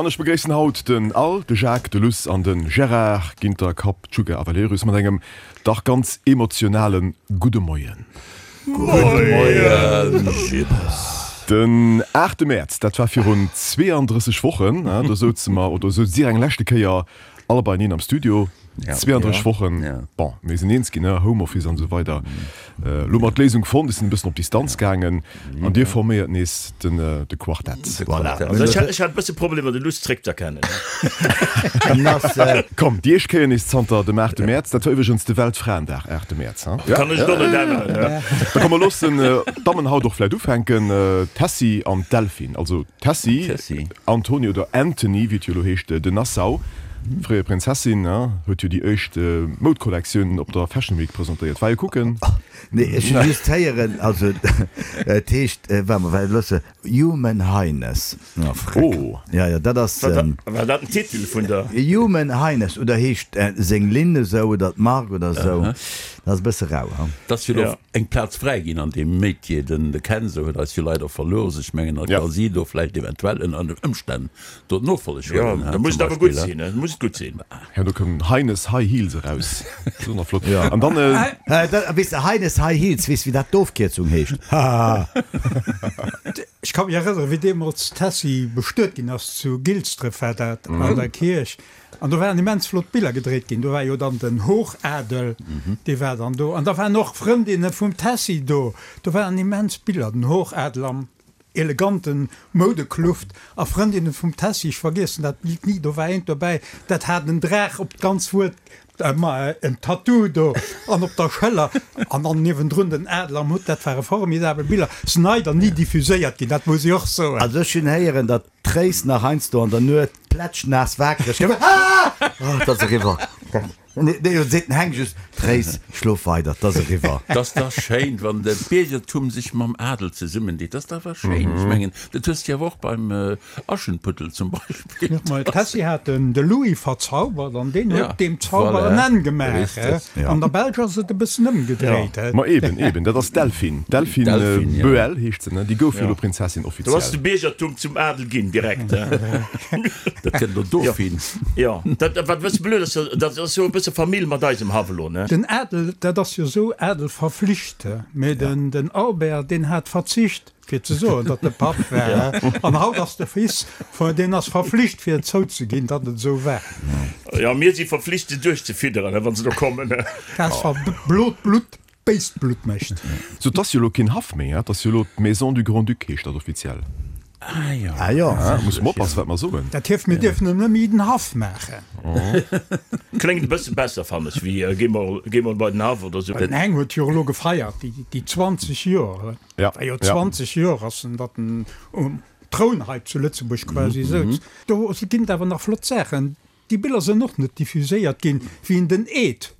An ech begréissen haut den Al, de Jacques, de Luss an de Gérard Ginter, Kapp, Tschugge a Valerius mat engem dach ganz emotionale gudde Moien. Gudde Moien, Jippes. Den aachte Mäerz, dat war virun 32 Wochen, do souze mer, oder souz Dir eng leschte Kéier all beieneen am Studio. 32 Wochen, bon, mir sinn eens ginn, Homeoffice an esou weider. Elo hu mer d'Léisung fonnt, ech sinn e bëssen op Distanz gaangen an Dir forméiert nees de Quartett. Voilà. Also ech hat e bësse Problemer, de Luss zréckz'erkennen. Komm, déi éischt Kéier nees zanter dem aachte Mäerz, dat war iwwregens de Weltfraendag, aachte Mäerz, ha? Kann ech et och net änneren. Da komm, mer loossen d'Dammen haut och vläicht ufänken, d'Tessy an d'Delphine. Also d'Tessy Antony oder Anthony, wéi et jo elo heescht, de Nassau, fréier Prinzessin, huet jo déi éischt Moudkollektioun op der Fashion Week presentéiert. War jo kucken? Nee, ech hu just héieren, also et heescht, waart mol, well loosse, Human Highness. Oh, freck. Oh. Ja, ja, dat ass. War dat den Titel vun der? Human Highness, oder heescht seng Linn esou oder d'Mark oder esou. Dat ass e bësse rau, ha? Et ass jo elo eng Plaz fräi ginn an deem Métier. Den de Kenzo huet eis jo leider verlooss. Ech mengen, da ka si do vläicht eventuell ënner den Ëmstänn do d'Nofolleg huelen, ha, zum Beispill, ha. Da muss et gutt sinn. Jo, do koum Heines High Heels eraus. Dat ass och nach flott. An dann. Weess de, Heines High Heels, weess wéi dat d'Ofkierzung heescht? Hahaha. Ech ka mech erënneren, wéi deemools d'Tessy bestuet ginn ass, zu Gilsdref war dat, an der Kierch. An do waren immens flott Biller gedréit ginn. Do war jo dann den Hochadel, dee war dann do. An da waren och Frëndinne vum Tessy do. Do waren immens Biller, den Hochadel am eleganten Moudekluft a Frëndinne vum Tessy. Ech vergiessen dat Bild ni. Do war eent dobäi, dat hat en Draach op d'ganz Wuert, ma en Tattoo do an op der Schëller an dann niewendrun den Adler am Hutt. Dat ware formidabel Biller. Sinn leider ni diffuséiert ginn, dat muss ech och soen. Also ech hunn héieren, datt D'Tréis nach heiansdo an der Nuet plätschnaass waakreg gëtt. Ah! Oh, 't ass eriwwer. Nee, nee, seet den Heng just, Tréis, schlof weider, 't ass eriwwer. 't ass dach schéin, wann de Biergertum sech mam Adel zesummendeet. 't ass dach awer schéin. Ech mengen, dat hues de jo awer och beim Aschenputtel zum Beispill. Ma d'Tessy hat den de Louis verzaubert an deen huet deem Zauber en Enn gemaach. An der Belsch ass et e bëssen ëmgedréit. Ma eben, eben, dat ass d'Delphine. D'Delphine Boël heescht se, ne? Déi gouf jo elo Prinzessin offiziell. Do ass de Biergertum zum Adel ginn, direkt. Dat kënnt elo Dauphine. Jo, dat, wat e bësse blöd ass, dat ass jo e bësse Famill mat eisem Haff elo, ne? Den Adel, dat ass jo esou, Adel verflicht, mee den Albert, deen hat verzicht. Fir ze soen, datt e Papp war. An haut ass de Fils, deen ass verflicht fir et zouzeginn, datt et esou war. Jo, mir si verflicht se duerchzefidderen, wa se do kommen. Dat ass wa blot Blutt béist Blutt mécht. Sou, 't ass jo elo keen Haff méi, 't ass jo elo d'Maison du Grand-Duc heescht dat offiziell. Ah jo. Ah jo. Musse mer oppassen, wat mer soen. Dat hieft, mir dierfen en net méi den Haff maachen. Kléngt e bësse besser, fannen ech, wéi géi mol, géi mol bei den Haff oder sou. Den Heng huet jo elo gefeiert, déi 20 Joer. Ja, War jo 20 Joer ass en, datt en um Troun hei zu Lëtzebuerg quasi souz. Do ginn et awer nach flott Saachen. Déi Biller sënn och net diffuséiert ginn, wéi en den Eed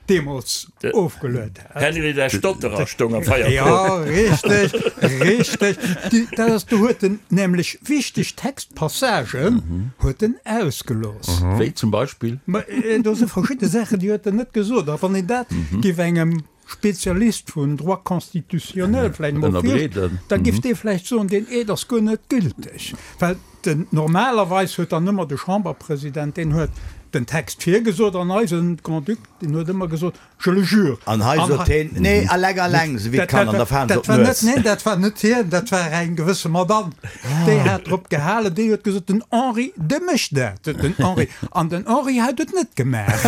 deemools ofgeluet hat. Henry der Stotterer stoung am Feierkrop. Jo, richteg, richteg. Déi, dat ass, do huet en nämlech wichteg Textpassagen huet en ausgelooss. Wéi zum Beispill? Ma do si verschidde Saachen, déi huet en net gesot. A wann een dat géif engem Spezialist vun Droit constitutionnel vläicht emol virst, da giff dee vläicht soen, deen Eed ass guer net gülteg. Well den, normalerweis huet dann ëmmer de Chamberpresident, deen huet den Text virgesot an eisen Grand-Duc, deen huet ëmmer gesot, je le jure. An hei sot heen, nee, eleng, eleng, esou wéi d'Kanner an der Faan se op Dat war net, d'Nues. neen, dat war net hien, dat war eng gewësse Madame, déi hat drop gehalen, déi huet gesot, den Henri, dee mécht dat, den Henri. An den Henri hat et net gemaach.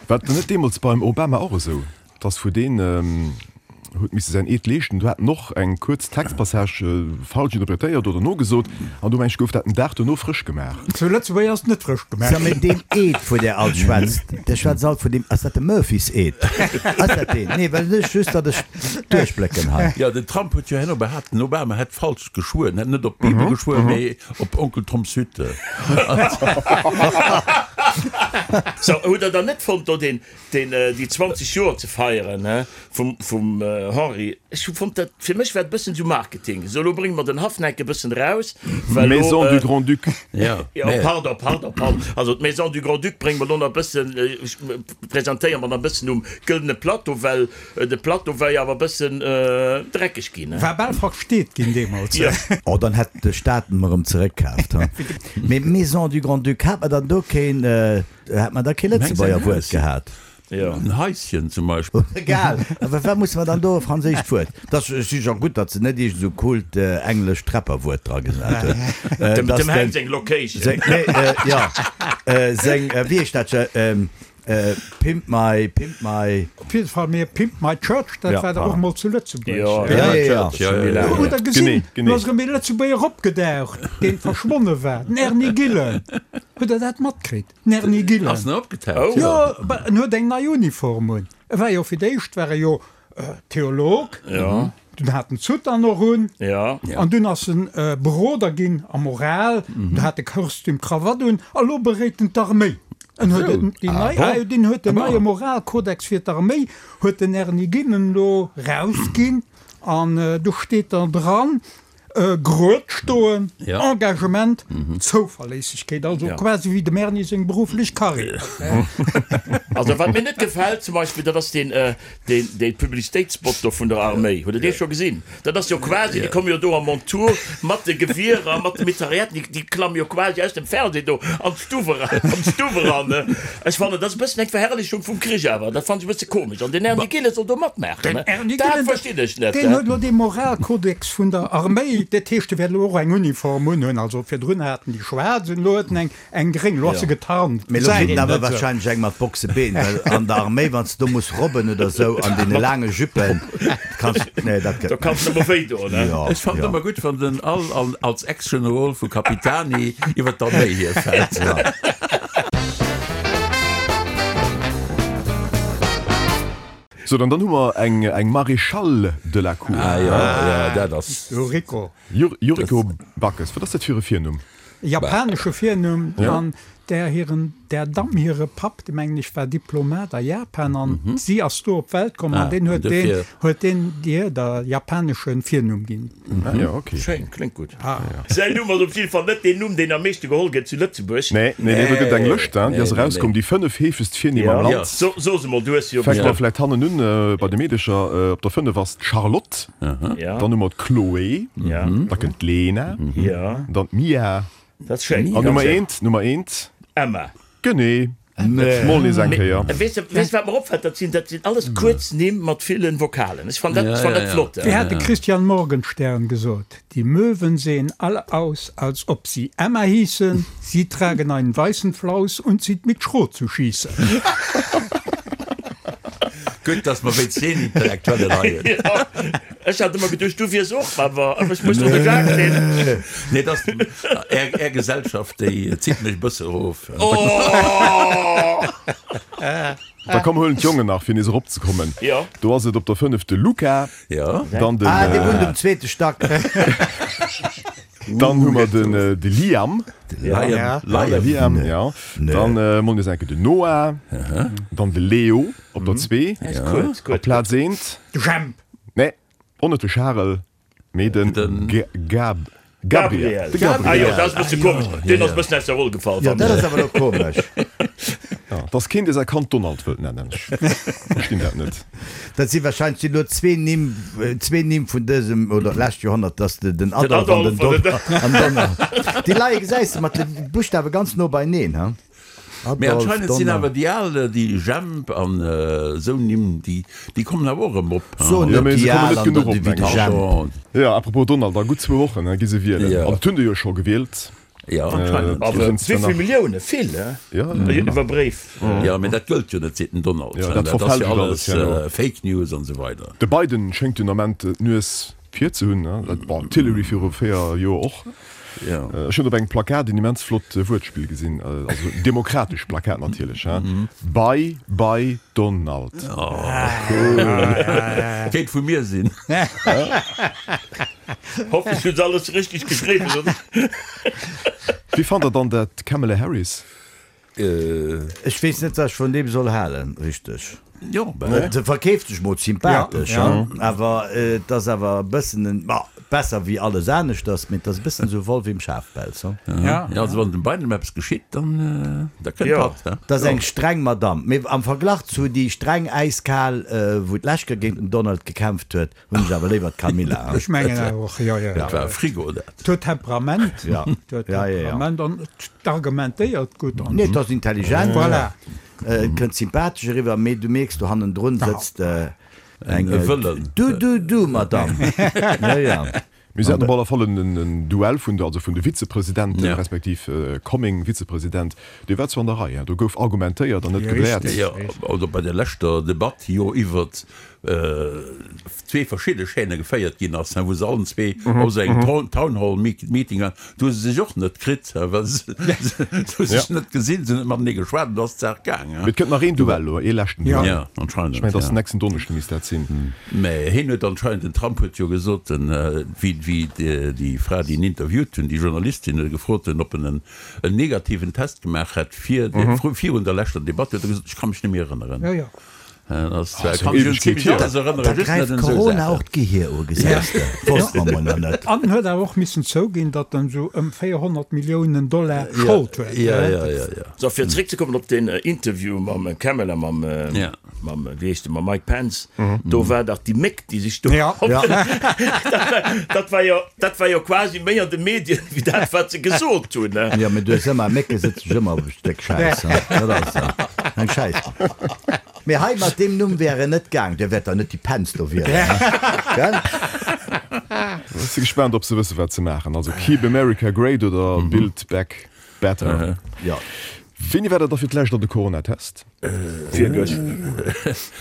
War et net deemools beim Obama och esou, dass vu deen huet misse säin Eed leeschten, do hat en och eng kuerz Textpassage falsch interpretéiert oder nogesot an do meng ech gouf dat den Dag dono frësch gemaach. Zu Lëtzebuerg ass et net frësch gemaach Sou, mee deen Eed vu där alt schwätzt, der schwätzt alt vun deem, ass dat de Murphys Eed? Ass dat deen? Nee, well ech just, datt ech duerchblécken hei. Jo, den Trump huet jo herno behaapt, den Obama hätt falsch geschwuer, en hätt net op d'Bibel geschwuer, mee op Onkel Toms Hütte. Sou, hutt der dann net fonnt do deen, deen, déi 20 Joer ze feieren, he, vum, vum Henri? Ech hu fonnt dat, fir mech war et e bëssen esou Marketing, esou elo brénge mer den Haffneck e bëssen eraus, well elo, Maison du Grand-Duc. Ja, Jo, pardon, pardon, pardon. Also d'Maison du Grand-Duc brénge mer elo nach e bëssen, presentéiere mer nach e bëssen um gëldene Plateau, well de Plateau war jo awer e bëssen dreckeg ginn, he. War bal versteet ginn deemools. Jo. Oh, dann hätt de Staat en erëm zeréckkaaft, ha? Mee Maison du Grand-Duc, hat mer dann do keen, hat mer da kee Lëtzebuerger Wuert gehat? Jo. En Haischen zum Beispill. Egal, awer wat musse mer dann do e franséischt Wuert? Dat ass jo gutt, datt se net iergend esou coolt englescht Rapper-Wuert dra gesat hunn. Dem dem Heng seng Location. Seng, nee, jo, seng, wéi heescht dat, Pimp my, Pimp my. Op jidde Fall, mee Pimp my Church, dat war dach och mol zu Lëtzebuerg. Jo, Pimp my Church, jo, jo, jo. Hutt der gesinn, Genee, genee. do ass erëm ee Lëtzebuerger opgedaucht, deen verschwonne war, den Erny Gillen. Hutt der dat matkritt? Den Erny Gillen. Ass en opgetaucht? Jo, en huet eng nei Uniform un. E war jo fir d'éischt war e jo Theolog, dunn hat en d'Soutane och un, an dunn ass en Beroder ginn a Moral, du hat e Kostüm, Krawatt un, a lo beréit en d'Arméi. En huet en déi nei, ah jo, deen huet den neie Moralkodex fir d'Arméi huet den Erny Gillen elo rausginn, an do steet dann dran, Grued stoen, Engagement, Zouverléissegkeet, also quasi wéi dem Erny seng berufflech Karriär. Also wat mir net gefält zum Beispill, dat ass deen dee Publicitéitsspot do vun der Arméi. Hutt Der dee scho gesinn? Dat ass jo quasi, déi komme jo do a Montur mat de Gewierer, mat de Mitrailletten, déi klamme jo quasi aus dem Fernseh do an d'Stuff eran, an d'Stuff eran. Ech fannen, dat ass e bëssen eng Verherrlechung vum Krich awer. Dat fannen ech e bësse komesch. An den Erny Gillen soll do matmaachen. Den Erny Dat Gillen, verstinn ech net. deen huet elo dee Moralkodex vun der Arméi. Dat heescht, e wäert elo och eng Uniform unhunn. Also virdrun hat en déi schwaarz un, elo huet en eng, eng gréng. Elo ass se getarnt. Mee elo Gesäit kritt een en awer net esou. warscheinlech eng mat Boxebeen, well an der Arméi, wann s de do muss robben oder esou an deene laange Juppen, kanns, nee, dat gëtt Do kanns de näischt. nëmme wéi doen, ne? Jo, Ech fannen jo. ëmmer gutt, wann den Al an als Ex-Generol vu Capitani iwwer d'Arméi hierfält. Ja. Sou, dann dann hu mer eng eng Maréchale de la Cour. Ah jo, jo, dat ass. Yuriko. Yuriko Backes, wat ass dat fir e Virnumm? E japanesche Virnumm an där hiren, där Damm hire Papp, dee mengen ech war Diplomat a Japan an si ass do op d'Welt komm an deen huet deen, huet deen dir der japanesche Virnumm ginn. Ah jo, ok. Schéin, kléngt gutt. Säin Numm ass op jidde Fall net deen Numm, deen am meeschte geholl gëtt zu Lëtzebuerg. Nee, nee, nee, do gëtt et eng Lëscht, hein, déi ass erauskomm, déi 5 heefegst Virnimm am Land. So, so se mol, du hues se jo Fänke mer bestëmmt. vläicht hannen un bei de Meedecher. Op der 5 ass d'Charlotte. Dann hu mer d'Chloé, da kënnt d'Lena, dann d'Mia. Dat ass schéin. An Nummer eent, Nummer eent. Emma. Genee. Mol nees eng Kéier. Weess de, weess wat mer opfält? Dat sinn, dat sinn alles kuerz Nimm mat villen Vokalen. Ech fannen dat, ech fannen dat flott. Wéi hat de Christian Morgenstern gesot, Die Möwen sehen alle aus, als ob sie Emma hießen, sie tragen einen weißen Flaus und sind mit Schrot zu schießen. Gutt, dass mer wéinst deen Intellektuellen hei hunn. Jo, ech hat ëmmer geduecht, du wiers och, awer ech muss do de Jacques sinn. Nee, dass Är, Är Gesellschaft, déi zitt mech e bësse erof. Oh! Da komm, huelen d'Jongen nach, fir nees eropzekommen. Jo. Do ass et op der 5 de Luca. Jo. Dann den. Ah, dee wunnt um zweete Stack. Dann hu mer den de Liam. Liam. De Liam, ja. Dann mol nees eng Kéier den Noah. Dann de Leo op der 2. Op Plaz 1. De Jemp. Nee, och net de Charel, mee den Gab. Gabriel. De Gabriel. Ah jo, Gabriel. dat ass e bësse komesch. Deen ass e bëssen aus der Roll gefall, Jo, fannen dat ech. ass awer elo komesch. Ja, dass keen dee säi Kand Donald wëllt nennen. Ech verstinn dat net. Dat si wahrscheinlech sinn elo zwee Nimm, zwee Nimm vun dësem oder lescht Joerhonnert, dass de den Adolf an den Don an Donald. Déi leie gesäis de mat de Buschtawe ganz no beineen, ha? Mee Adolf, anscheinend sinn Donald. awer déi al, déi Jemp an esou Nimm, déi, déi kommen awer och erëm op, ha? So Jo, net mee déi se kommen al net an genuch der, op, wéi de mengen ech. Jemp. Jo, apropos Donald, a gutt zwou Wochen gi se wielen. Jo. An et hunn der jo scho gewielt. Jo, anscheinend. Awer Do sinn wéi zwar vill nach. Millioune? Vill, he? Jo, jo. Iwwer Bréif. Jo, mee dat gëllt jo net, seet den Donald. Jo, dat Dat ass jo verfälscht alles alles herno. Fake News an esou weider. De Biden schéngt den Ament d'Nues vir ze hunn, ne? Bon, d'Hillary viru 4 Joer och. Ech hunn op engem Plakat en immens flott Wuertspill gesinn, also demokratesch Plakat natierlech, hein, Bye bye Donald. Kéint vu mir sinn. Hoffentlech hunn se alles richteg geschriwwen, oder? Wéi fannt der dann dat Kamala Harris? Ech weess net, wat ech vun deem soll halen, richteg. Jo, ben. Se verkeeft sech mol sympathesch, awer et ass awer e bëssen en, ma besser wéi alles aneschters, mee et ass e bëssen esou Wollf im Schafpelz, hu. Ja, also wann dem Biden eppes geschitt, dann, da kënnt hatt, he. Et ass eng streng Madamm, mee am Verglach zu déi streng, äiskal, wou d'lescht Kéier géint den Donald gekämpft huet, hunn ech awer léiwer d'Camilla. Ech mengen awer och, jo, jo. Dat war e Frigo, dat. Et huet Temperament, et huet Temperament an et argumentéiert gutt. Nee, et ass intelligent. Voilà. Et kënnt sympathesch eriwwer, mee du mierks, do hannendrun sëtzt eng Du, du, du, Madame. Jo, jo. Mir haten op alle Fall en Duell vun de, also vun de Vizepresidenten, respektiv coming Vizepresident, dee war zwar an der Rei, do gouf argumentéiert an net gebläert. Jo, also bei der leschter Debatt jo iwwert zwee verschidde Chaîne geféiert ginn ass, wou se allen zwee op esou engem Town Hall Meeting waren, do hu se sech och net kritt, well se hu sech net gesinn, se hunn net matenee geschwat an do ass d'Saach gaang. Mee et kënnt nach een Duell elo, ee leschten Duell. Jo, anscheinend, Ech mengen, et ass den nächsten Donneschde misst dat sinn. Mä hien huet anscheinend, den Trump huet jo gesot, wéi déi Fra, déi en interviewt hunn, déi Journalistin, huet e gefrot hunn, ob en en negativen Test gemaach hätt virun der leschter Debatt, huet e gesot, ech ka mech net méi erënneren. Da gräift Corona och d'Gehier u, gesäis de. Wosst mer mol nach net. An en huet awer och missen zouginn, datt en esou ëm 400 Milliounen Dollar Schold huet. Sou, fir zeréckzekommen op deen Interview mam Kamala, mam, mam, wéi heescht e, mam Mike Pence, do war dach déi Méck, déi sech do, dat war jo, dat war jo quasi méi an de Medien wéi dat, wat se gesot hunn. Jo, mee du hues ëmmer, Mécke sëtze sech ëmmer op e Stéck Schäiss, dat ass eng Schäiss. Mee hei mat deem Numm wär en net gaang, der wäert der net déi Pence do wielen, gell? Ech si gespaant ob se wësse wat se maachen, also Keep America Great oder Build Back Better. Jo. Wéini war der da fir d'lescht an de Coronatest? Virgëscht.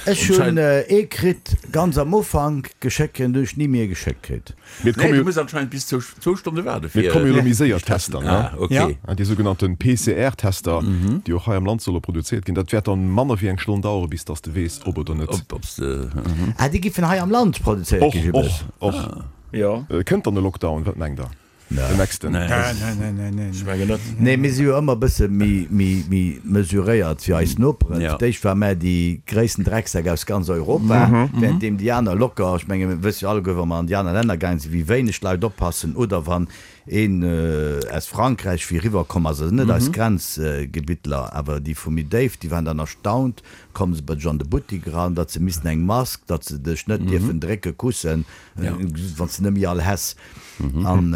Ech hunn ee kritt ganz am Ufank geschéckt kritt an hunn ech ni méi ee geschéckt kritt. Mee et komme jo. Du muss anscheinend bis zwou zwou Stonne waarde fir. Mee et komme jo elo méi séier Tester, ne? Ah, okay. Déi sougenannte PCR-Tester, déi och hei am Land solle produzéiert ginn. Dat wäert dann manner wéi eng Stonn dauere bis dass de weess, ob oder net. Ob, ob s de. Ah, déi giffen hei am Land produzéiert ginn, Och, och, och. Jo. Kënnt dann e Lockdown? Wat mengt der? Den nächsten? Nee, nee, nee, nee. Ech mengen net. Nee, mir si jo ëmmer e bësse méi, méi, méi mesuréiert wéi eis Noperen. Ja. Fir d'éischt ware mär déi gréissten Drecksäck aus ganz Europa, währenddeem déi aner locker, ech menge mir wësse jo alleguer, wa mer an déi aner Länner gaange sinn, wéi wéineg d'Leit oppassen oder wann een aus Frankräich wéi eriwwer komm ass, also net eis Grenzgebittler, awer déi vu méi déif, déi waren dann erstaunt, komme se bei dech an de Buttik eran, datt se missten eng Mask, datt se dech net dierfen drécke, kussen, wann s de net méi all häss. An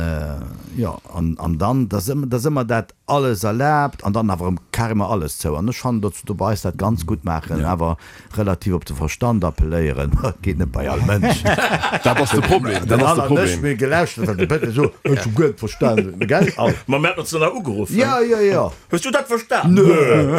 jo, an an dann, da ass ëmmer, da ass ëmmer dat alles erlaabt an dann awer erëm carrément alles zou. An ech fannen, datt se do bei eis dat ganz gutt maachen, awer relativ op de Verstand appelléieren. Geet net bei all Mënsch. Dat ass de Problem, dat Den ass de Alain an ech, Problem. mir gelauschtert, wat de Péter sot, ech hu guer net verstanen, gell? Al. Ma mir haten ons dann nach ugeruff. Jo, jo, jo. Hues du dat verstan? Nö.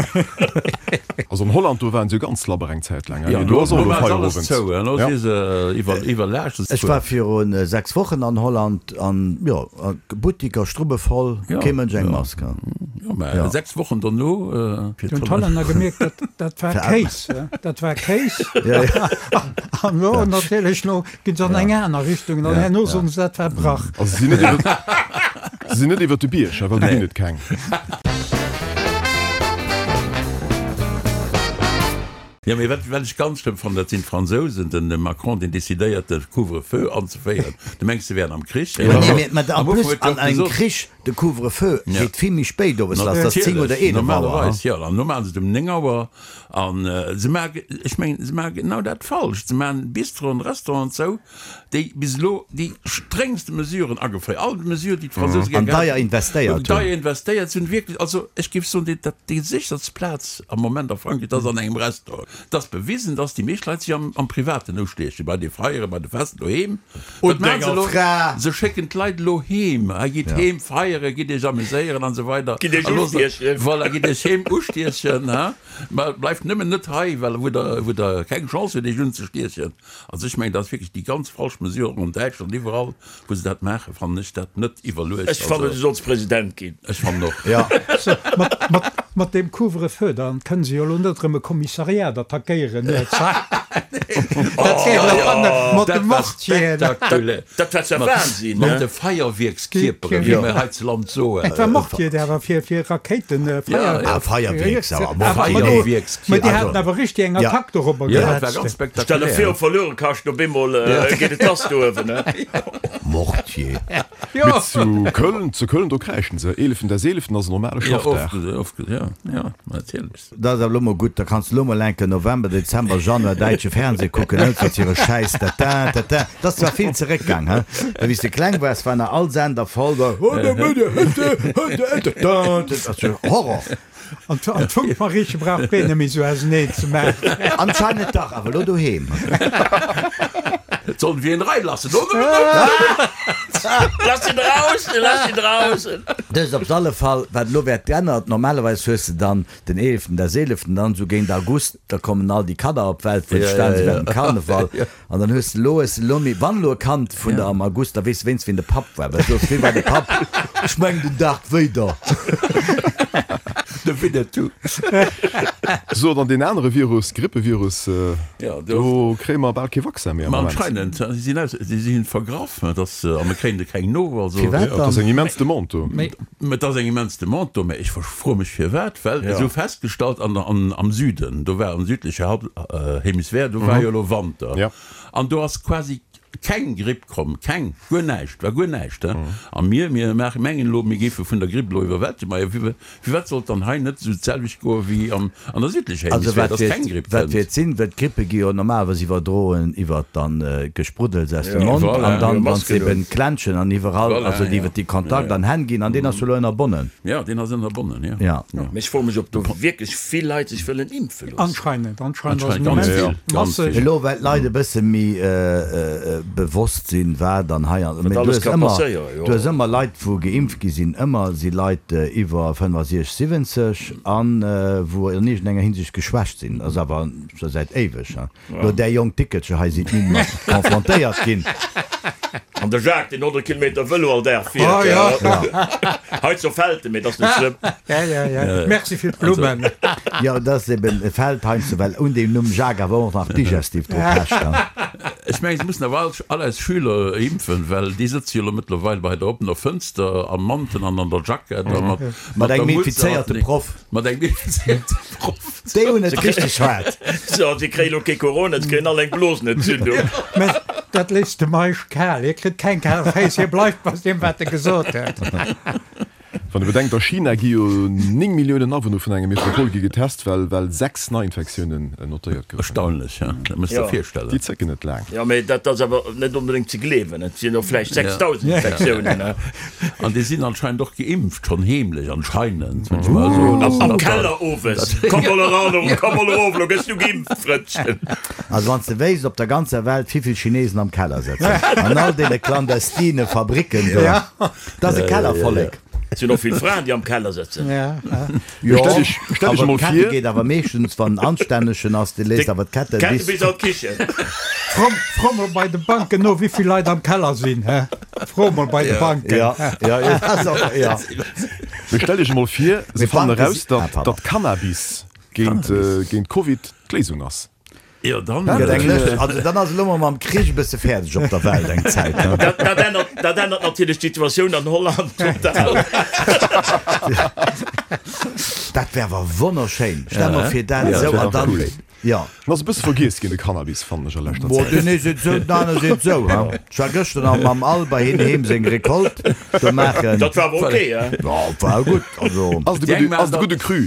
Also an Holland, do waren se jo ganz labber eng Zäit laang. Ja, do ass och do elo war alles Feierowend. zou, elo Ja. si se iwwer, iwwerlaascht. Ech war virun 6 Wochen an Holland an jo, Buttiker strubbevoll, Ja, kee Mënsch eng ja. Mask. Jo, mä Ja. 6 Wochen dono, fir Hunn d'Hollänner gemierkt, dat, dat war Kéis, dat war Kéis. Ja, ja. An elo natierlech, elo ginn se an eng aner Richtung an herno soen se, dat war Brach. Also si sinn net iwwer, si sinn net iwwer de Bierg, well do ginn et keng. Jo, mee wat, wat ech ganz schlëmm fannen, dat sinn d'Fransousen, den Macron, deen decidéiert, de Couvre-feu anzeféieren. Du mengs, se wären am Krich? Ma nee, mee, mä en Am Ufank plus huet jo an och engem gesot. Krich, de Couvre-feu Ja. geet vill méi spéit owes lass, dat ass 10 oder Natierlech, 11 Auer. normalerweis, jo. An elo maachen se et um 9 Auer. An se maachen, ech mengen, se maache genau dat falsch. Se maachen Bistroen, Restauranten zou, déi bis elo déi stréngste Mesuren ageféiert, all Mesure, déi d'Fransouse An gär deier gehat hunn, investéiert hunn. deier investéiert sinn, wierklech, also ech géif soen, déi, dat, déi sécherst Plaz am Moment a Frankräich, dat ass an engem Restaurant. Et ass bewisen, dass déi meescht Leit sech am, am Privaten ustiechen, bei de Feieren, bei de Festen doheem. Wat Und maachen se denger elo? Fra! Se schécken d'Leit elo heem, hei gitt heem feieren, gitt iech amuséieren an esou weider. Gitt iech A loosst, ustiechen. voilà, gitt iech heem ustiechen, ha, mä bleift nëmmen net hei, well wou der, wou der keng Chance hutt, iech unzestiechen. Also ech mengen, dat ass wierklech déi ganz falsch Mesure, och an Däitschland, iwwerall wou se dat maachen, fannen ech dat net iwwerluecht. Ech fannen, du solls President ginn. Ech fannen och. Jo. So, mat, mat, mat deem Couvre-feu, da kënne se jo elo net erëm e Kommissariat attackéieren nuets. Mat de Mortieren. Dat war zwar Wahnsinn, Mat de Feierwierkskierperen, wéi mir hei ze Land soen. Et war Mortier, déi awer fir Rakéiten, Feier. Ah, Feierwierks, awer Feierwierkskierper. Mä déi haten awer richteg eng Attack dorobber gehat. Dat war ganz spektakulär. Stell der vir, op Verluerekascht, op eemol geet et lass do uewen. Mortier. Mee zu Köln, zu Köln, do kräischen se. Eeleften des Eeleften ass en normale Schaffdag. Jo, jo, natierlech. Dat ass awer elo mol gutt, da kanns de elo mol enke November, Dezember, Januar däitsche Fernseh kucken, net mat hire Schäiss tata tata. Dat ass zwar vill zeréckgaang, he, well wéi s de kleng waars, war nach all Sender voll da Horror. An d'Funkmarieche brauch keen net méi sou auseneen ze maachen. Anscheinend dach, awer elo doheem. Sollen wir ihn reinlassen? Lass ihn draußen, lass ihn draußen! Dëst op alle Fall, wat elo wäert geännert, normalerweis hues de dann Den eeleften, der seeleften, dann esou géint August, da kommen all déi Kanner op d'Welt, wou stan si während dem Karneval. An dann hues de elo, hues de elo méi, wann elo e Kand vun der am August, da weess de wéinst wien de Papp war, well soss, wee war de Papp? Ech mengen den Darth Vader. De Winnetou. So, dann deen anere Virus, Grippevirus, do kréie mer bal kee Vaccin méi am Ma Moment. anscheinend, si sinn aus, si sinn vergraff, dass, a mir kréien de keng no, also. Firwat Dat ass dann? eng immens Demande do. Mä et ass eng immens Demande do, mä ech froe mech firwat, well se hu festgestallt an der, an, am Süden, do war am südleche Halb, Hemisphär, do war jo elo Wanter an do ass quasi keng Gripp komm, keng, guer näischt, war guer näischt, he. A mir, mir maachen, mengen elo, mir géife vun der Gripp elo iwwerwältegt, ma jo, firwat sollt dann hei net esou d'selwecht goe wéi an, an der südlecher Also Hemisphär, wat dass wäert, keng Gripp wat kënnt? wäert sinn, well d'Grippe gi jo normalerweis iwwerdroen iwwert dann Gespruddels aus dem Mond Voilà. an dann, Jo, wann s Masken eben un. klenschen an iwwerall, Voilà, also ja. iwwert déi Kontakt Ja, ja. an Hänn ginn an deen ass jo elo ënnerbonnen. Ja, deen ass ënnerbonnen, ja. Ja. Mee ech froe mech, ob do wierklech vill Leit sech wëllen impfe loossen. Anscheinend, anscheinend ass Anscheinend en ganz immens vill, ganz masseg. vill. Elo well d'Leit e bësse méi bewosst sinn, wat an hei an, Wat mee du alles hues ka ëmmer, passéieren, jo. du hues ëmmer Leit wou geimpft gi sinn, ëmmer si Leit iwwer 65, 70 an wou an iergendenger Hinsicht geschwächt sinn. Ass awer scho säit éiweg. Lo där jonk Dickelcher hei sinn ni mat confrontéiert ginn. An de Jacques, deen 100 Kilometer Vëlo all Dag fiert. Oh, ja. Hei zu Felten, mee dat ass net schlëmm. Ja, ja, ja. Merci fir d'Blummen. Jo, dat ass eben e Feld heiansdo, well un deem Numm Jacques awer och nach Digestif dru pecht. Ech mengen, se mussen awer all, all eis Schüler impfen, well déi sëtze jo elo mëttlerweil bei der oppener Fënster am Mantel an an der Jackett a mat, Mat der engem Mutz a mat infizéierte Proff. Mat engem infizéierte Proff. Déi hunn et richteg haart. So, si kréien elo kee Corona, si kréien all eng Blosenentzündung. Mä dat léisst de Meisch kal. Hie kritt keng kal Féiss, hie bleift bei deem, wat e gesot huet. Wann e bedenkt, a China gi jo 9 Milliounen Awunner vun enger Metropol gi getest, well well 6 Neiinfektiounen notéiert goufen. Erstaunlech, hein? Dat muss der virstellen. Déi zécken net laang. Jo, mä dat ass awer net onbedéngt ze gleewen. Et sinn och vläicht 6.000 Infektiounen, hein? An déi sinn anscheinend och geimpft, schonn heemlech, anscheinend, wëll ech mol soen. Am, am Keller owes. Komm mol eran, komm mol erof, lo gëss du geimpft, Frëndchen. Also wann s de wéisst op der ganzer Welt wéivill Chinesen am Keller sëtzen, an all deene clandestine Fabricken do, dat ass e Kellervollek. Et sinn och vill Fraen, déi am Keller sëtzen. Jo, Stell dech, stell dech awer emol d'Kette vir. geet awer meeschtens, wann en anstännegen ass, dee léisst awer d'Kette D'Kette bis. bis an d'Kichen. Fro, fro mol bei de Banken no, wéivill Leit am Keller sinn, hä? Fro mol bei de Banken. Ja, ja, ja, dat ass och, ja. Mee stell dech emol vir, se Mee fannen Banke eraus, si, ah, datt, pardon. datt Cannabis géint, géint Covid d'Léisung ass. Jo, dann. Gëtt eng Lëscht. Also dann ass elo mol mam Krich e bësse fäerdeg op der Welt eng Zäit, ne? Dat, dat ännert, dat ännert natierlech d'Situatioun an Holland total. Dat wär awer wonnerschéin. Stell mer vir dat esou an dann, jo. En ass e bësse vergiess ginn, de Cannabis, fannen ech a leschter Bo, Zäit. deen ee seet esou, den anere seet esou, ha. Ech war gëschter nach mam Al bei hien heem seng Recolte do maachen. Dat war awer ok, he? Jo, war gutt, also. Ass de gudde, ass de gudde Cru.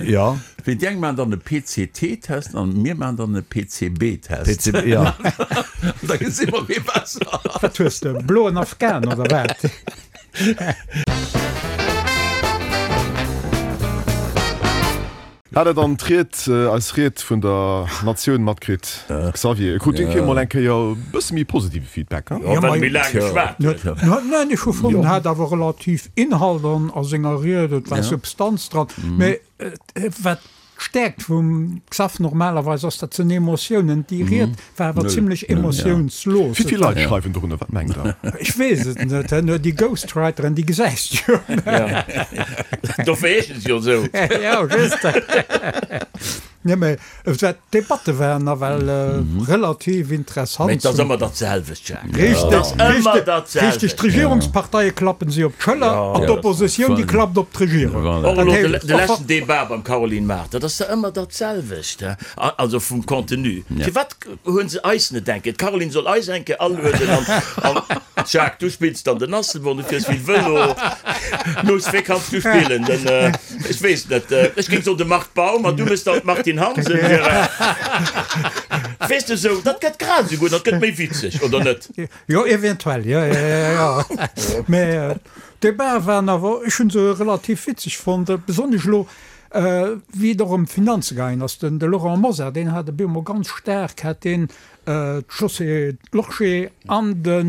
Jo. Wéi déi eng maachen dann e PCT-Test an mir maachen dann e PCB-Test. PCB, jo. An da gesi mer, wie besser ass. Wat hues de? Bloen Afghan oder wat? Hat der dann d'Ried, eis Ried vun der Natioun matkritt, Xavier? Krut Dir mol eng Kéier e bësse méi positive Feedback, he? Jo, well e méi laang geschwat huet. Neen, ech hu fonnt, en hat awer relativ Inhalt an a senger Ried, et war Substanz dran. Mee Wat d'Stäerkt vum Xaph normalerweis ass, dat sinn Emotiounen. Déi Ried war awer zimlech emotiounslos. Wéi vill Leit schreiwen dorunner, wat mengt Der? Ech weess et net. Déi Ghostwriteren, déi gesäis de jo. Dofir heeschen se jo esou. Jo, just. Nee, mä d'Debatte waren nawell relativ interessant. Mä et ass ëmmer dat selwecht, Jacques. Richteg, richteg, richteg. D'Regierungsparteie klappen si op d'Schëller an d'Oppositioun, déi klappt op d'Regierung. Och elo de leschten Debat beim Caroline Mart, dat ass da ëmmer dat selwecht, also vum Contenu. Firwat hunn se eis net eng Kéier? D'Caroline soll eis eng Kéier alueden an, Jacques, du spills dann den Asselborn, du fiers vill Vëlo. Luss, wee kanns du spillen? Den. Ech weess net, ech géing soen de Marc Baum an du méchs dann d'Martine Hansen, Gérard. Weess de esou, dat gëtt grad esou gutt an et gëtt méi witzeg, oder net? Jo, eventuell, jo, jo, jo, jo. Mä d'Debatë waren awer, ech hu se relativ witzeg fonnt, besonnesch elo, wéi et och ëm d'Finanze gaangen ass. Den de Laurent Mosar, deen hat op eemol ganz staark, hat deen d'Josée Lorsché an den,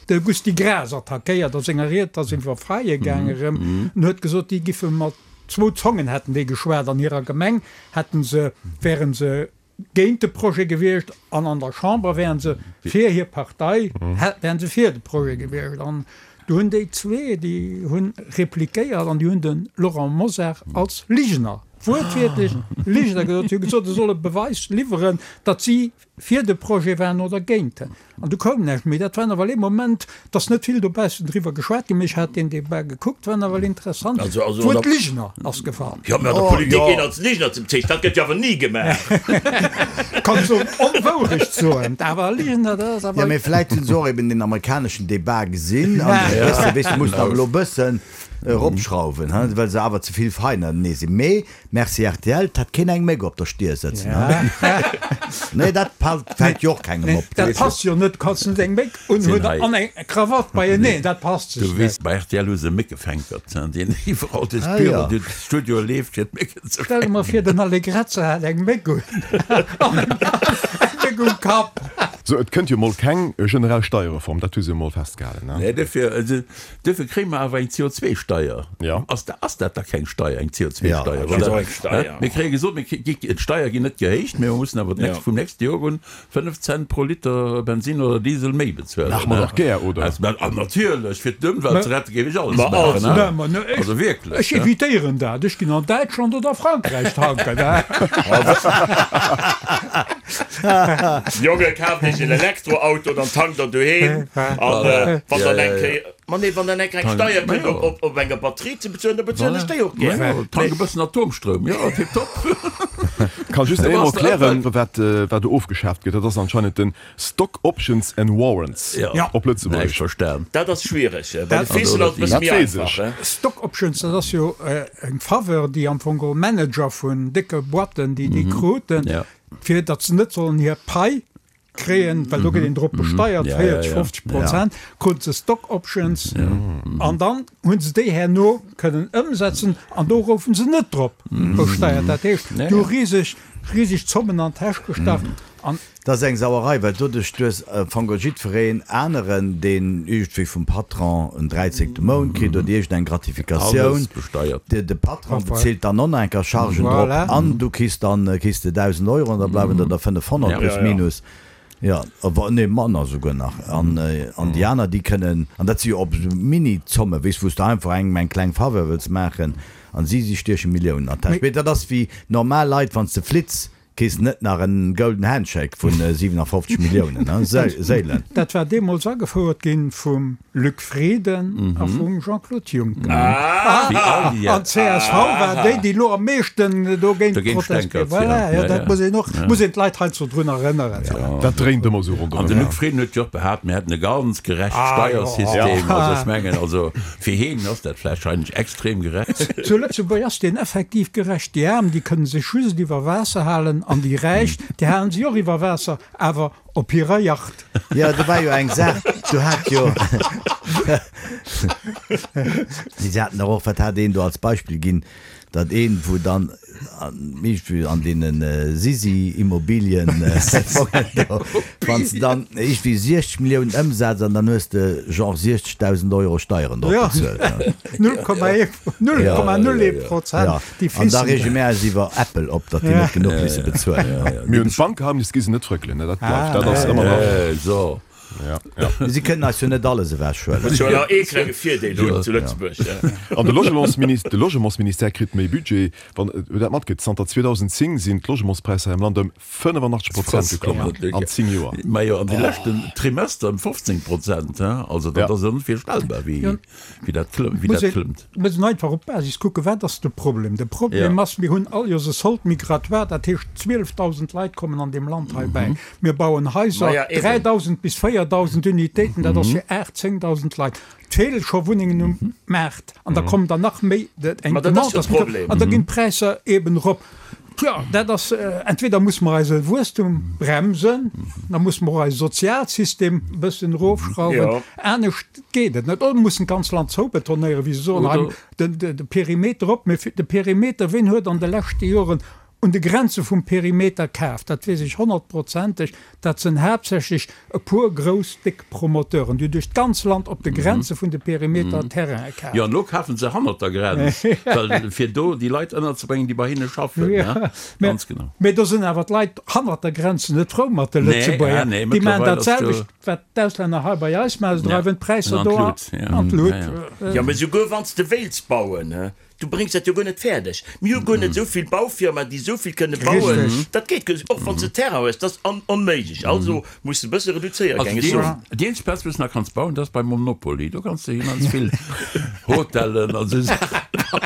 De Gusty Graas attackéiert a senger Ried, ass iwwer Faille gaange rëm en huet gesot, déi giffe mat zwou Zongen hätten déi geschwat, an hirer Gemeng hätten se, wären se géint de Projet gewiescht an an der Chamber wären se fir hir Partei, wären se fir de Projet gewiescht. An du hunn déi zwee, déi hunn repliquéiert an déi hunn de Laurent Mosar als Ligener, wuertwiertlech Ligener gesot. Si hu gesot, e soll e Beweis liwweren, datt si fir de Projet waren oder géint en. An du koum näischt méi. Dat war nawell ee Moment, et ass net vill dobaussen driwwer geschwat ginn, mee ech hat deen Debat gekuckt, war nawell interessant. Also, also, D'Wuert Ligener ass gefall. Jo, mä an der Politik een als Ligener ze bezeechnen, dat gëtt jo awer ni gemaach. Kanns och Onwourecht soen, awer Ligener, dat ass awer. Jo, mee vläit hunn se och eben deen amerikaneschen Debat gesinn an e bësse, weess de, mussen awer elo e bëssen eropschrauwen, he, well se awer ze vill feinenee sinn. Mee Merci rtl, 't hätt keen eng Méck op der Stier sëtzen, he? Nee, dat fält jo och kengem op. Dat passt jo net, du kanns net eng Méck unhunn an eng Krawatt beieneen, dat passt sech net. Du weess, bei rtl hu se Méckefänkert, deen iwwerall duerch d'Büro, duerch d'Studioe leeft, fir d'Mécken ze fänken. Stell der mol vir, den Allegrezza hätt eng Méck un an eng Méck um Kapp. Sou, et kënnt jo mol keng generell Steierreform, dat hu se jo mol festgehalen, ne? Nee, dofir, Duerfir kréie mer awer eng CO2-Steier. Ja. Ass da, ass dat da keng Steier, eng CO2-Steier? Ja, dat ass och eng Steier. Mir kréie gesot, mir kri, d'Steier ginn net gehéicht, mä mer mussen awer d'nächst, vum nächste Joer un 5 Cent pro Liter Bensin oder Diesel méi bezuelen. Maache mer dach gär, oder? Ah, natierlech, fir d'Ëmwelt ze rette géif ech alles maachen, he? Also wierklech, Ech evitéieren dat. Ech ginn an Däitschland oder Frankräich tanken, he? Jonge, kaaft iech en Elektroauto, dann tankt der doheem. An wann dann eng Kéier, ma nee, wann dann eng Kéier eng Steier kënnt op, op, op enger Batterie ze bezuelen, da bezuelen ech déi och gär. Majo, tank e bëssen Atomstroum, jo, tiptop. Kann just eemol klären, wat, wat do ofgeschaaft gëtt. Dat ass anscheinend den Stock Options and Warrants op Lëtzebuergesch. Näischt verstan. Dat ass schwiereg. Bei de Fissen ass et e bësse méi einfach, he? Stock Options, dat ass jo eng Faveur, déi am Fong geholl Manager vun décke Boîten, déi déi kruten, fir datt se net sollen hir Pai kréien, well do gëtt een drop besteiert, 40, 50 Prozent, kruten se Stock Options an dann hu se déi herno kënnen ëmsetzen an do goufe se net drop besteiert. Dat heescht, do hu riseg, riseg Zommen an d'Täsch gestach an. Dat ass eng Sauerei, well doduerch du hues am Fong geholl jiddwereen aneren, deen iergendwéi vum Patron en dräizéngte Mount kritt oder iergendeng Gratifikatioun, de Patron bezilt dann och nach eng Kéier Chargen drop an du kriss dann kriss de 1.000 Euro an da bleiwen der der 500 plus minus, jo, nee manner souguer nach. An déi aner, déi kënnen, an dat si jo op esou Mini-Zommen, weess, wou s de einfach engem eng kleng Faveur wëlls maachen an si, si stieche Milliounen an d'Täsch. Mee dat ass wéi normal Leit, wann s de flitts, Kriss net nach en Golden Handshake vun 57 Milliounen, he? Séilen. Dat war deemools agefouert ginn vum Luc Frieden a vum Jean-Claude Juncker. An d'CSV war déi, déi elo am meeschten dogéint protestéiert. Voilà, jo, dat muss een och, muss een d'Leit heiansdo drun erënneren. Dat dréint ëmmer esou ronderëm. An de Luc Frieden huet jo och behaapt, mir hätten e ganz gerecht Steiersystem. Also ech mengen, also fir heen ass dat vläicht wahrscheinlech extrem gerecht. Zu Lëtzebuerg ass deen effektiv gerecht. Déi Aarm, déi kënne sech just iwwer Waasser halen an déi Räich, déi halen sech och iwwer Waasser, awer op hirer Yacht. Jo, do war jo eng Saach, do hat jo, si haten dach och, wat hat een do als Beispill ginn, datt een, wou dann iergendwéi an deene Sisi-Immobilien-Fongen do, wann s de dann iergendwéi 60 Milliounen ëmsetz an dann hues de genre 60.000 Euro Steieren drop bezuelt. 0,01 Prozent, déi An da reege mär eis iwwer Apple op, datt déi net genuch misse bezuelen. Mir hunn d'Bankgeheimnis, gi se net frëckelen, dat bleift, dat ass ëmmer nach. So. Ja, ja. Si kënnen eis jo net alles ewechhuelen. Muss jo nach ee klenge Virdeel hunn zu Lëtzebuerg. An de Logementsministère, de Logementsministère kritt méi Budget. Wann Der dat matkritt, zanter 2010 sinn d'Logementspräisser hei am Land ëm 85 Prozent geklommen an 10 Joer. Majo, an de leschten Trimester ëm 15 Prozent, also dat ass onvirstellbar, wéi dat klëmmt. Muss een einfach op d'Basis kucken, Wat ass de Problem? De Problem ass, mir hunn all Joers e Solde migratoire, dat heescht 12.000 Leit kommen an deem Land hei bäi. Mir bauen Haiser, 3.000 bis 4.000 Unitéiten, dat ass fir 8.000, 10.000 Leit. Et feele scho Wunnengen um Maart an da kommen der nach méi, eng Demande ass an da ginn d'Präisser eeben erop. Tjo, dat ass, entweder musse mer eise Wuesstum bremsen, da musse mer och eise Sozialsystem e bëssen erofschrauwen, anescht geet et net. Oder mer mussen d'ganz Land zoubetonéieren, wéi se soen, hei de Perimeter op. Mee de Perimeter, ween huet an de leschte Joren un de Grenze vum Perimeter kaf? Dat weess ech honnertprozenteg, Dat sënn haaptsächlech e puer grouss, déck Promoteuren, déi duerch d'ganz Land op de Grenze vun de Perimeter Terrainen kafen. Jo, an elo kafen se hannert der Grenz, well fir do déi Leit ënnerzebréngen, déi bei hinne schaffen. Ganz genau. Mee do sënn awer d'Leit hannert der Grenz net frou mat de Lëtzebuerger. Déi maachen dat selwecht, wat d'Auslänner hei bei eis maachen, se dreiwen d'Präisser do an d'Lut. Jo, mee souguer wann s de wéilts bauen, Du bréngs dat jo guer net fäerdeg. Mir hu guer net esou vill Baufirmaen, déi esou vill kënne bauen. Dat geet guer net, och wann s de Terrain hues, dat ass onméiglech. Also muss de e bësse reduzéiere, géing ech soen. Also déi eenzeg Plaz, wou s de nach kanns bauen, dat ass bei Monopoly. Do kanns de immens vill Hotellen an esou Saache bauen.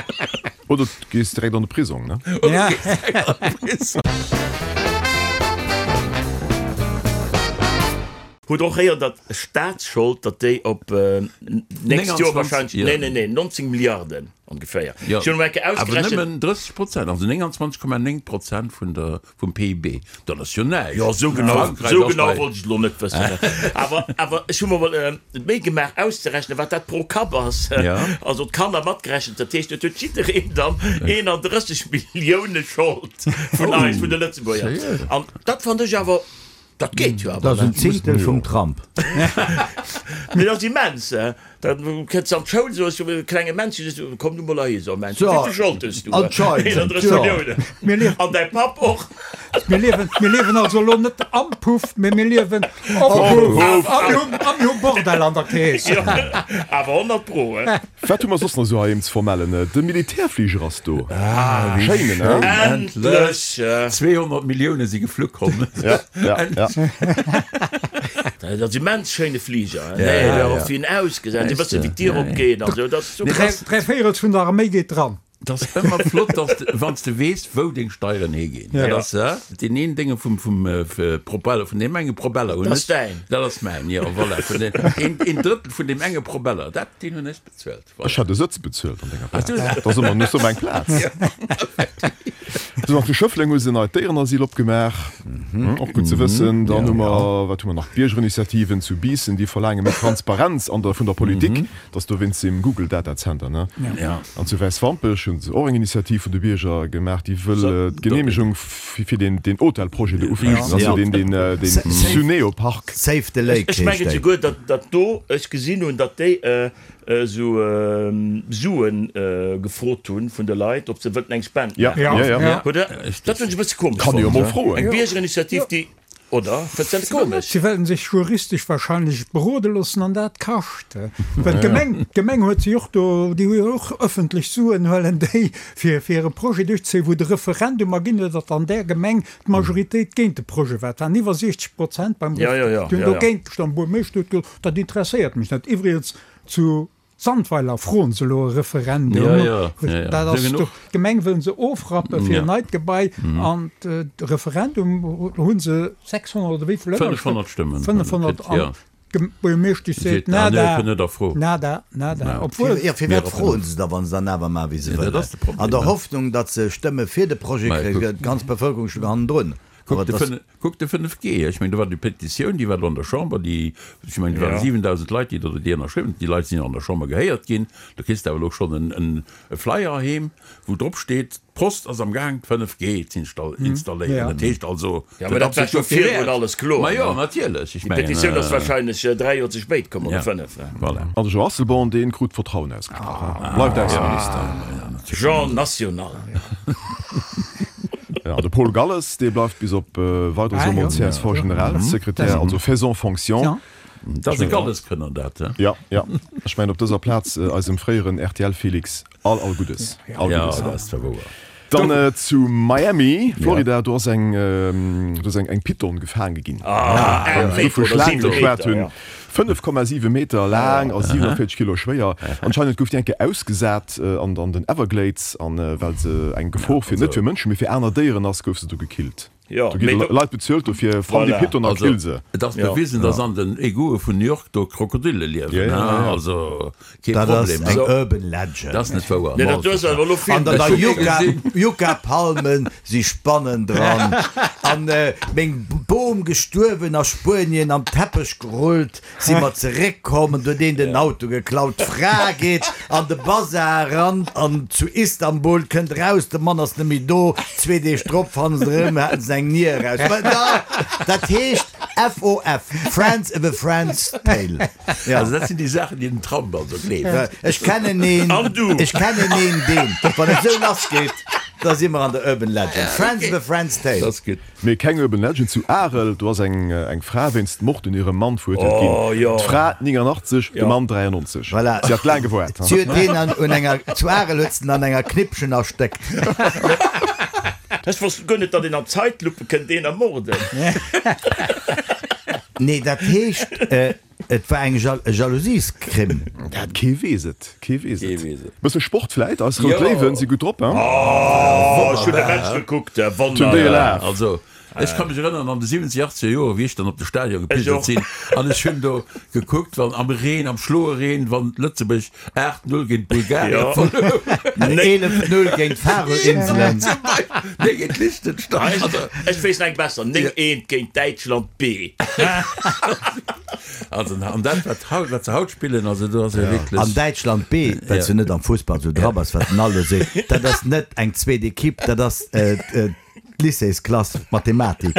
Oder du gees direkt an de Prisong, ne? Oder du gees direkt an de Prisong. Hutt och héieren, datt Staatsschold, datt déi op nächst Joer wahrscheinlech, nee, nee, nee, 19 Milliarden ongeféier. Ech hunn emol eng Kéier ausgerechent. Awer nëmmen 30 Prozent, also 29,9 Prozent vun der, vum PIB. Dat ass jo näischt. Jo, esou genau, esou genau wollt ech et elo net wëssen. Awer, awer ech hu mer emol d'Méi gemaach auszerechnen, wat dat pro Kapp ass. Also d'Kanner matgerechent. Dat heescht, et huet jiddereen dann 31 Millioune Schold vun eis, vun de Lëtzebuerger. An dat fannen ech awer. Dat geet jo awer. Dat ass en Zehntel vum Trump. Mee dat ass immens, he. Da kënns de an d'Schoul, soos du, klenge Männchen, sees du, komm du mol heihi, so Männchen, wéi vill Schold hues du? Anscheinend, 31 Milliounen. Mir liewen. An däi Papp och. Mir liewen, mir liewen also elo net am Puff, mee mir liewen op Puff. A mir hunn, a mir hu Bordell an der Keess. Jo, awer 100 pro, he. Wat hu mer soss nach esou heiheem ze vermellen? De Militärfliger ass do. Ah, wéi schéin, ne? Endlech! 200 Millioune si geflu komm. Ja, ja, ja. Dat ass immens schéine Fliger, he? Nee, ja, och wéi en ausgesäit, e bësse wéi d'Dier opgeet an esou, dat ass super. Dräivéierels vun der Arméi geet dran. Et ass ëmmer flott, dass de, wann s de weess, wou deng Steieren higinn. Dat ass deen een Dénge vum, vum Propeller, vun deem enge Propeller hunn ech. Dat ass däin. Dat ass mäin, jo, voilà. Vun deem, een, een Drëttel vun deem enge Propeller, dat, deen hunn ech bezuelt, voilà. Ech hätt e Sëtz bezuelt an denger Plaz. Dat ass ëmmer nur eng Plaz. Sou, an zu Schëffleng hu se e neit Déierenasyl opgemaach. Och gutt ze wëssen. Dann hu mer, wat hu mer nach? D'Biergerinitiativen zu Biissen, déi verlaange méi Transparenz an der, vun der Politik. Dat ass dowéinst dem Google Data Center, ne? Ja. An zu Wäiswampech hu se och eng Initiativ vun de Bierger gemaach, déi wëll d'Geneemegung fir deen Hotelprojet do ufechten, also deen deen Suneo Park. Save the Lake heescht déi. Ech mengen souguer, datt datt do, ech gesinn hunn, datt déi esou Sue gefrot hunn vun de Leit, ob se wëllten eng Spend maachen. Ja, ja, ja. Hutt Der? Dat hunn ech e bësse komesch fonnt. Kann ee jo mol froen. Eng Biergerinitiativ, déi. Oder? Fënns de dat net komesch? Si wëllen sech juristesch wahrscheinlech berode loossen an dat kascht. Well d'Gemeng, d'Gemeng huet si och do, déi hu jo och ëffentlech Suen, huelen déi fir fir e Projet duerchzéien, wou de Referendum erginn huet, datt an där Gemeng d'Majoritéit géint de Projet war. Et waren iwwer 60 Prozent beim Referendum, déi hunn dogéint gestëmmt. D'Buergermeeschter huet gesot, dat interesséiert mech net. Iwwregens zu Sandweiler froen se elo e Referendum. Dat ass do, d'Gemeng wëllen se ofrappe fir en neit Gebai an de Referendum hu se 600 oder wéi vill ënnerschrëften? 500 Stëmmen. 500 an d'Buergermeeschtesch seet nada, nada, nada. Obwuel. Jo, firwat froen se da, wa se dann awer maachen, wéi se wëllen? An der Hoffnung, datt se Stëmme fir de Projet kréien, d'ganz Bevëlkerung stoung hannendrun. Kuck de 5G, ech mengen do war déi Petitioun, déi war do an der Chamber, déi, ech mengen do waren 7.000 Leit, déi do déi ënnerschriwwen hunn. Déi Leit sinn jo an der Chamber gehéiert ginn. Do kriss de awer elo schonn e Flyer heem, wou drop steet, d'Post ass am Gaang d'5G z'installéieren. Dat heescht also, Jo, mä dat war scho virdrun alles kloer. Ma jo, natierlech, ech mengen. Déi Petitioun ass wahrscheinlech 3 Joer ze spéit komm, oder 5. Voilà. An de Jean Asselborn, dee krut d'Vertrauen ausgesprach, bleift Ausseminister. Jean National. An de Paul Galles, dee bleift bis op Weideres emol CSV-Generalsekretär, also faisant fonction. Dat ass e Galleskënner dat, he? Jo, jo. Ech mengen op dëser Plaz eisem fréieren RTL-Felix all, all Guddes. All Ja, Guddes. dat ass zwar wouer. Dann zu Miami, Florida, do ass eng, do ass eng, eng Python gefaange ginn. Ah, Wann se do vu Meter oder Schlaange 7 geschwat Meter, hunn. ja. 5,7 Meter laang a 47 Kilo schwéier. Anscheinend gouf déi eng Kéier ausgesat an, an den Everglades an well se eng Gefor fir, net fir Mënschen, mee fir aner Déieren ass, gouf se du gekillt. Jo, Do gi mee do. Leit bezuelt dofir, fann déi Voilà. Python a Also, kill se. et ass bewisen, dass an den Egoue vun New York do Krokodille Ja, liewen, ja, ja, ja. also kee Dat ass Problem. eng Also, Urban Legend. dat ass net wouer. Nee, dat duerst awer elo vill. An der Ech hu Yucca, gesinn. Yucca-Palmen si Spannen dran. An meng Bom gestuerwen a Spuenien am Teppech gerullt. Si mer zeréck komm an huet een den Auto geklaut. D'Fra geet an de Bazar eran an zu Istanbul, kënnt eraus, de Mann ass net méi do. Zwee Deeg drop fannen se erëm, haten se eng Nier eraus. Mä da, dat heescht FOF, Friends of a Friend's Tale. Ja. Also dat sinn déi Saachen, déi den Trump also gleeft. Ech kennen een, An du? ech kennen een deen, wann et esou lass geet, da si mer an der Urban Legend. Friends of a Friend's Tale. Dat ass gutt. Mee keng Urban Legend, zu Arel, do ass eng Fra wéinst Mord un hirem Mann verurteelt ginn. Oh jo. D'Fra 89, de Mann 93. Voilà. Si hat laang gewaart. Si huet deen an un enger, zu Arel huet se en an enger Knippchen erstéckt. Ech wosst guer net, datt een an Zeitlupe kënnt een ermorden. Nee, dat heescht, Et war eng Jalousiescrime. Dat kee weess et, kee weess et. Kee weess et. Bësse Sport vläit, eis rout Jo. Léiwen si gutt drop, hein? Oh, ech hunn de Match gekuckt, Hunn déi wonnerbar. elaf. Also, ech ka mech erënneren, an de 70, 80er Joren, wéi ech dann op de Stadion Ech gepilgert och. sinn, an ech hunn do gekuckt, wann am Reen, am schloe Reen, wann Lëtzebuerg 8, 0 géint Bulgarien Jo. verluer huet. 11, 0 géint d'Faroe-Inselen. Zum Beispill, nee, géint Liechtenstein. Also, Ech weess nach eng besser, 9, 1 géint Däitschland B. Also, an dat, wat haut, wat se haut spillen, also do ass jo wierklech. An Däitschland B, well s du net am Fussball esou dra bass, wat den Aldo seet, dat ass net eng zweet Equipe, dat ass d'Lycéesklass Mathematik.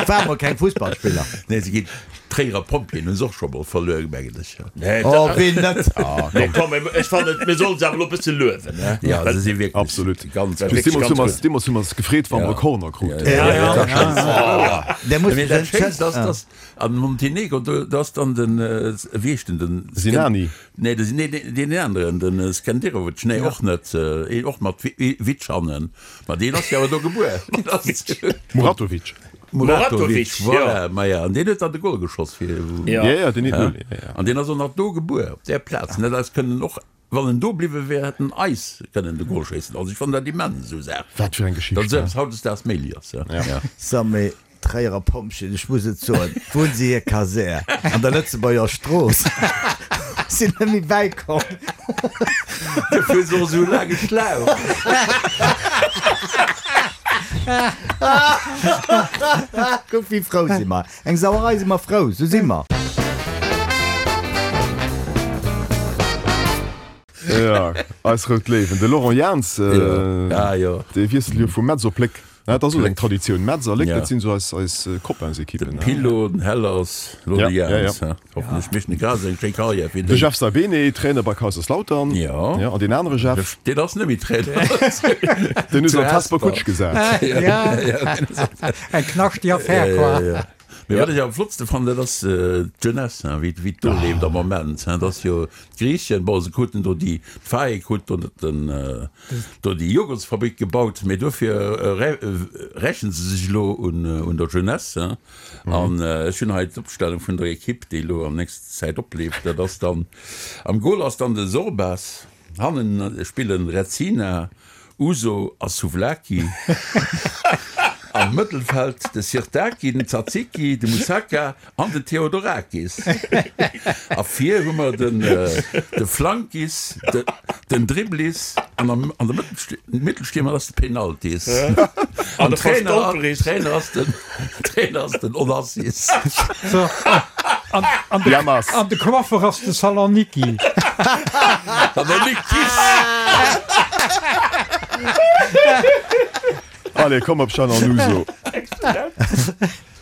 War mol keng Fussballspiller. Nee, se ginn d'Tréierer Pompjeeën hu se och scho mol verluer, mengen ech. Nee, Oh, ween net? Nee, komm, ech fannen, mir sollen se awer elo e bësse luewen, ne? Ja, se si wierklech Absolut. ganz Just gutt. deemools hu ganz mer, gutt. deemools hu mer s gefreet, wa mer e Corner kruten. Ja, Ja, dat ass ja. Der muss Mee dat Schéinst ass, Ja. dass An Montenegro, do ass dann den, wéi heescht en, den Sinani. Nee, de, nee, deen aneren, den Skenderovic, nee, och net, een och mat Witsch hannen, ma deen ass jo awer do gebuer. Muratovic. Muratovic, voilà, ma ja, an deen huet dann de Gol geschoss fir, Ja, ja, deen huet, ja, ja. An deen ass och nach do gebuer, op där Plaz, an dat eis kënnen och Wann en do bliwwe wär, hätt en eis kënnen de Gol schéissen. Also ech fannen dat immens, esou Saachen. Wat fir eng Geschicht, Datt esou eppes hautdesdaags méiglich ass, ja. So, mee d'Tréierer Pompjeeën, ech muss et soen, wou hunn se hir Kasär? An der Lëtzebuerger Strooss. Sinn net méi bäikomm. Dofir hu se och esou e laange Schlauch. Kuck, wéi frou si mer. Eng Sauerei si mer frou, sou si mer. Jo, eis rout Léiwen. De Laurent Jans, dee wiesselt jo vu Metz op Léck. Dat ass och eng Traditioun. Metz a Léck, dat sinn esou eis, eis Copainsekippen. De Pillo, den Hellers, elo de Jans. Hoffentlech mécht en grad esou eng schéi Karriär wéi De Jeff Saibene, Trainer bei Kaiserslautern. Jo. An deen anere Jeff. Deen ass net méi Trainer. Deen hu se an d'Hesper Kutsch gesat. Eng knaschteg Affär, quoi. Mee wat ech am flottste fannen, dat ass d'Jeunesse, hein, wéi wéi d'do leeft am Moment, hein. Dat ass jo d'Griichen, bon, se kruten do déi, d'FAEK huet do den, do déi Joghurtsfabrik gebaut, mee dofir rächen se sech elo un un der Jeunesse, hein. An ech hunn hei d'Opstellung vun der Equipe, déi elo an nächster Zäit opleeft. Dat ass dann, am Goal ass dann de Sorbas, hannen spillen Rezzina, Ouzo a Souvlaki, am Mëttelfeld de Sirtaki, den Tzatziki, de Moussaka an den Theodorakis. A vir hu mer den de Flankis, den Dribblis an am an der Mëttelstiermer ass de Penaltis. An de Trainer Verstolperis. Trainer ass den Trainer ass den Onassis. So, an, an, de, Jammers. an de Coiffer ass de Saloniki. Salonikis! Allez, komm op Jeanne an Ouzo.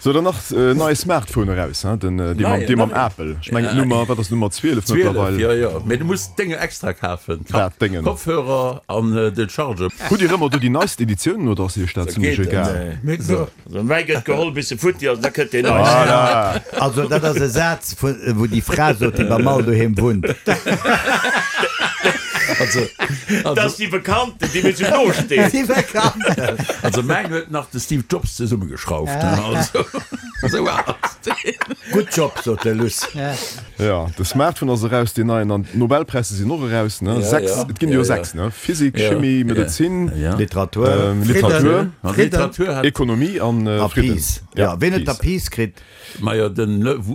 Sou. Sou, dann nach en neie Smartphone eraus, hein, den, dee mam, dee mam Apple. Ech mengen d'Nummer, wat ass d'Nummer 12 mëttlerweil? 12, jo, jo. Mee du muss d'Dénge extra kafen. Wat, d'Déngen? Kopfhörer an den Charger. Hutt Dir ëmmer do déi neist Editiounen oder ass Iech dat zimlech egal? Also mäi gëtt geholl bis e futti ass, da kënnt deen neisten. Voilà. Also dat ass e Saz vu wou déi Fra sot, déi beim Al doheem wunnt. Also, Dat ass déi Bekannten, déi mir sou no stinn. Déi Bekannten. Also mäin huet nach de Steve Jobs zesummegeschrauft, also esou al ass deen. Good job, sot de Luss. Jo, de Smartphone ass eraus, deen neien, an d'Nobelpräisser sinn och eraus, ne? Sechs, et ginn jo sechs, ne? Physik, Chimie, Medezin, Literatur, Literatur, Ekonomie an Fridden. Peace. Jo, ween huet da Peace kritt? Majo, de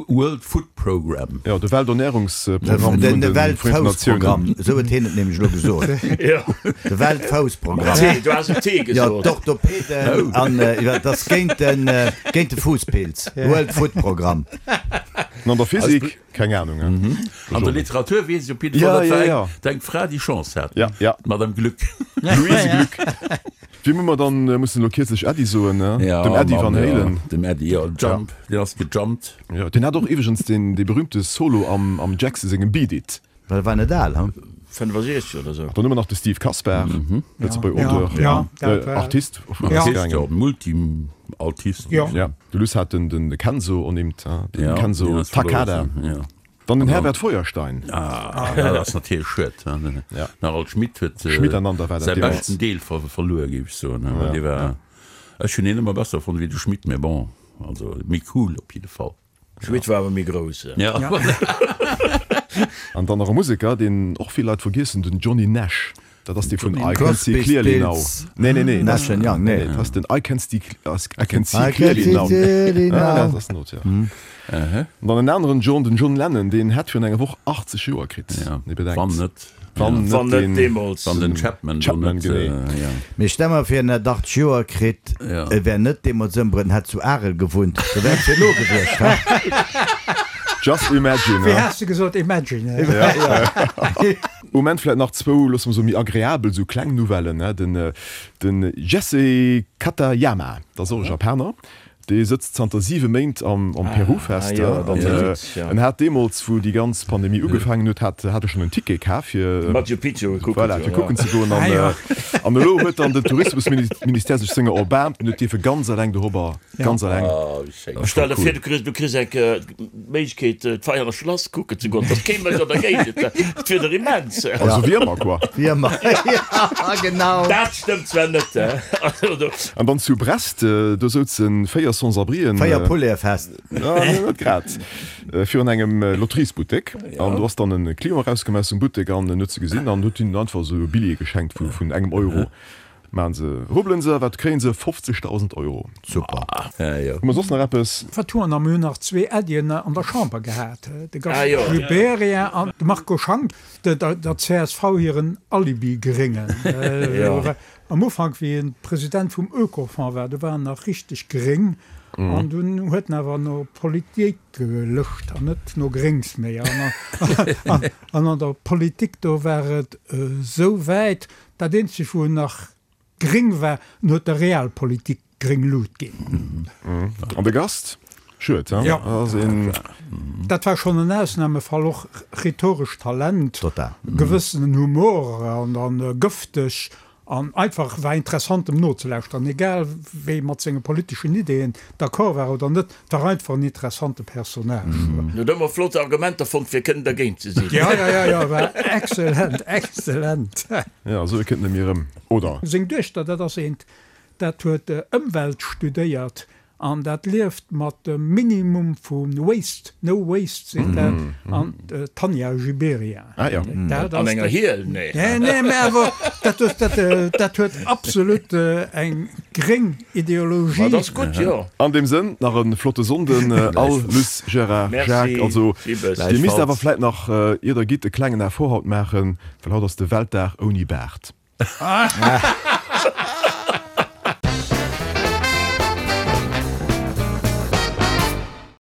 World Food Program. Jo, de Welternährungsprogramm vun de Vereenten Natiounen. De Weltfoussprogramm, esou huet hien et nämlech elo gesot. De Weltfoussprogramm. T, du has en T Jo, gesot. d'Orthopäden an, jo, dat ass géint den, géint de Fuusspilz. World Food Program. An an der Physik? Keng Ahnung. An der Literatur weess ech op jidde Fall, dat war eng Fra, déi Chance hat. D'Madame Glück. Louise Glück. Wiem hu mer dann mussen elo kierzlech Äddi soen, ne? Dem Eddie Van Halen. Dem Eddie, jo. Jump, deen ass gejumpt. Jo, deen hat och iwweregens deen dee berühmte Solo am am Jackson sengem Beat It. Well e war net al, hm? 65 oder sou. Dann hu mer nach de Steve Kasper, Lëtzebuerger Auteur, Artist, Artist, jo, Multi-Altist. Jo, de Luss hat den de Kenzo ernimmt, den Kenzo Takada. Dann den Herbert Feuerstein. Ah, dat ass natierlech schued. Den Harald Schmidt huet säi beschten Deel verluer, géif ech soen. Dee war, ech hunn hien ëmmer besser fonnt wéi de Schmidt, mä bon, also méi cool op jidde Fall. Schmidt war awer méi grouss. Ja. An dann nach e Museker, deen och vill Leit vergiessen, den Johnny Nash. Dat ass dee vun I Can See Clearly Now. Nee, nee, nee. Nash and Young, nee. Dat ass den I Can See, I Can See Clearly Now. Ah, dat ass den Auteur. An dann en aneren John, den John Lennon, deen hätt virun enger Woch 80 Joer kritt. Ja, wann net. Wann net deen deemools. Wann den Chapman do Chapman, net, genee. ja. Mee stell mer vir, en hätt 80 Joer kritt, e wär net deemools ëmbruet, en hätt zu Arel gewunnt, da wär et fir elo gewiescht, he? Just imagine, Wéi he? has de gesot? Imagine, he? Ja. Um Enn vläit nach zwou, loosse mer soen, méi agreabel, esou kleng Nouvellen, he? Den, den Jesse Katayama, dat ass och e Japaner, Dee sëtzt zanter 7 Méint am Peru fest. An en hat deemools, wou déi ganz Pandemie ugefaangen huet, hat hat e schonn en Ticket kaf fir Machu Picchu kucken voilà, fir kucken ze goen. An an elo huet dann den Tourismusministère sech senger erbaarmt an huet dierfe ganz eleng dorobber, ganz eleng. Stell der vir, du kriss du kriss eng d'Méiglechkeet d'Veianer Schlass kucken ze goen, et ass kee Mënsch an der Géigend, dat wier der immens. Also wéi ëmmer, quoi. Wéi ëmmer, jo genau. Dat stëmmt zwar net. An dann zu Brest, do souzen 4 Sans-abrien. 4 Poulaire fest. Nee, net grad. Virun engem Lotteriesbuttek. An do ass dann e Client erauskomm aus dem Buttek an en huet se gesinn an huet hinnen einfach esou e Billjee geschenkt vun engem Euro. Maachen se, rubbelen se, wat kréien se? 50.000 Euro. Super. Hu mer soss nach eppes? Wat hu mer nach? Mir hunn nach zwee Äddien an der Chamber gehat, de Gaston Gibéryen an de Marco Schank, der csv hiren Alibi-Gréngen. Am Ufank, wéi en President vum Oekofonds war, do war en nach richteg gréng an dunn huet en awer no Politik gelëscht an net no Gréngs méi. An an der Politik, do war et esou wäit, dat eenzegt wou en nach gréng war, en huet der Realpolitik gréng Lut ginn. An de Gast? Schued, he? Jo. Ass een. Dat war schonn en Ausnahmefall, och rhetorescht Talent, Total. gewëssenen Humor an an gëfteg an einfach war interessant em nozelauschteren, egal wéi mat senge politeschen Ideeën d'accord war oder net, war einfach en interessante Personnage. En huet ëmmer flott Argumenter fonnt fir kënnen dergéint ze sinn. Jo, jo, jo, jo, war excellent, excellent. Jo, esou e kënnt net méi erëm, oder? Seng Duechter, dat ass eent, dat huet Ëmwelt studéiert An dat lieft mat dem Minimum vu Waste, no waste seet dat, an d'Tanja Gibéryen. Ah jo. Dat An ass enger dat. Hiel? Nee. Nee, nee, mä awer dat huet, dat, dat huet absolut eng gréng Ideologie. Ma dat ass gutt, jo. An deem Sënn, nach e flotte Sonnden all, Luss, Gérard, Merci, Jacques. Also, Gibbes. Dir misst awer vläit nach, ier der gitt, e klengen Effort haut maachen, well haut ass de Weltdag ouni Baart.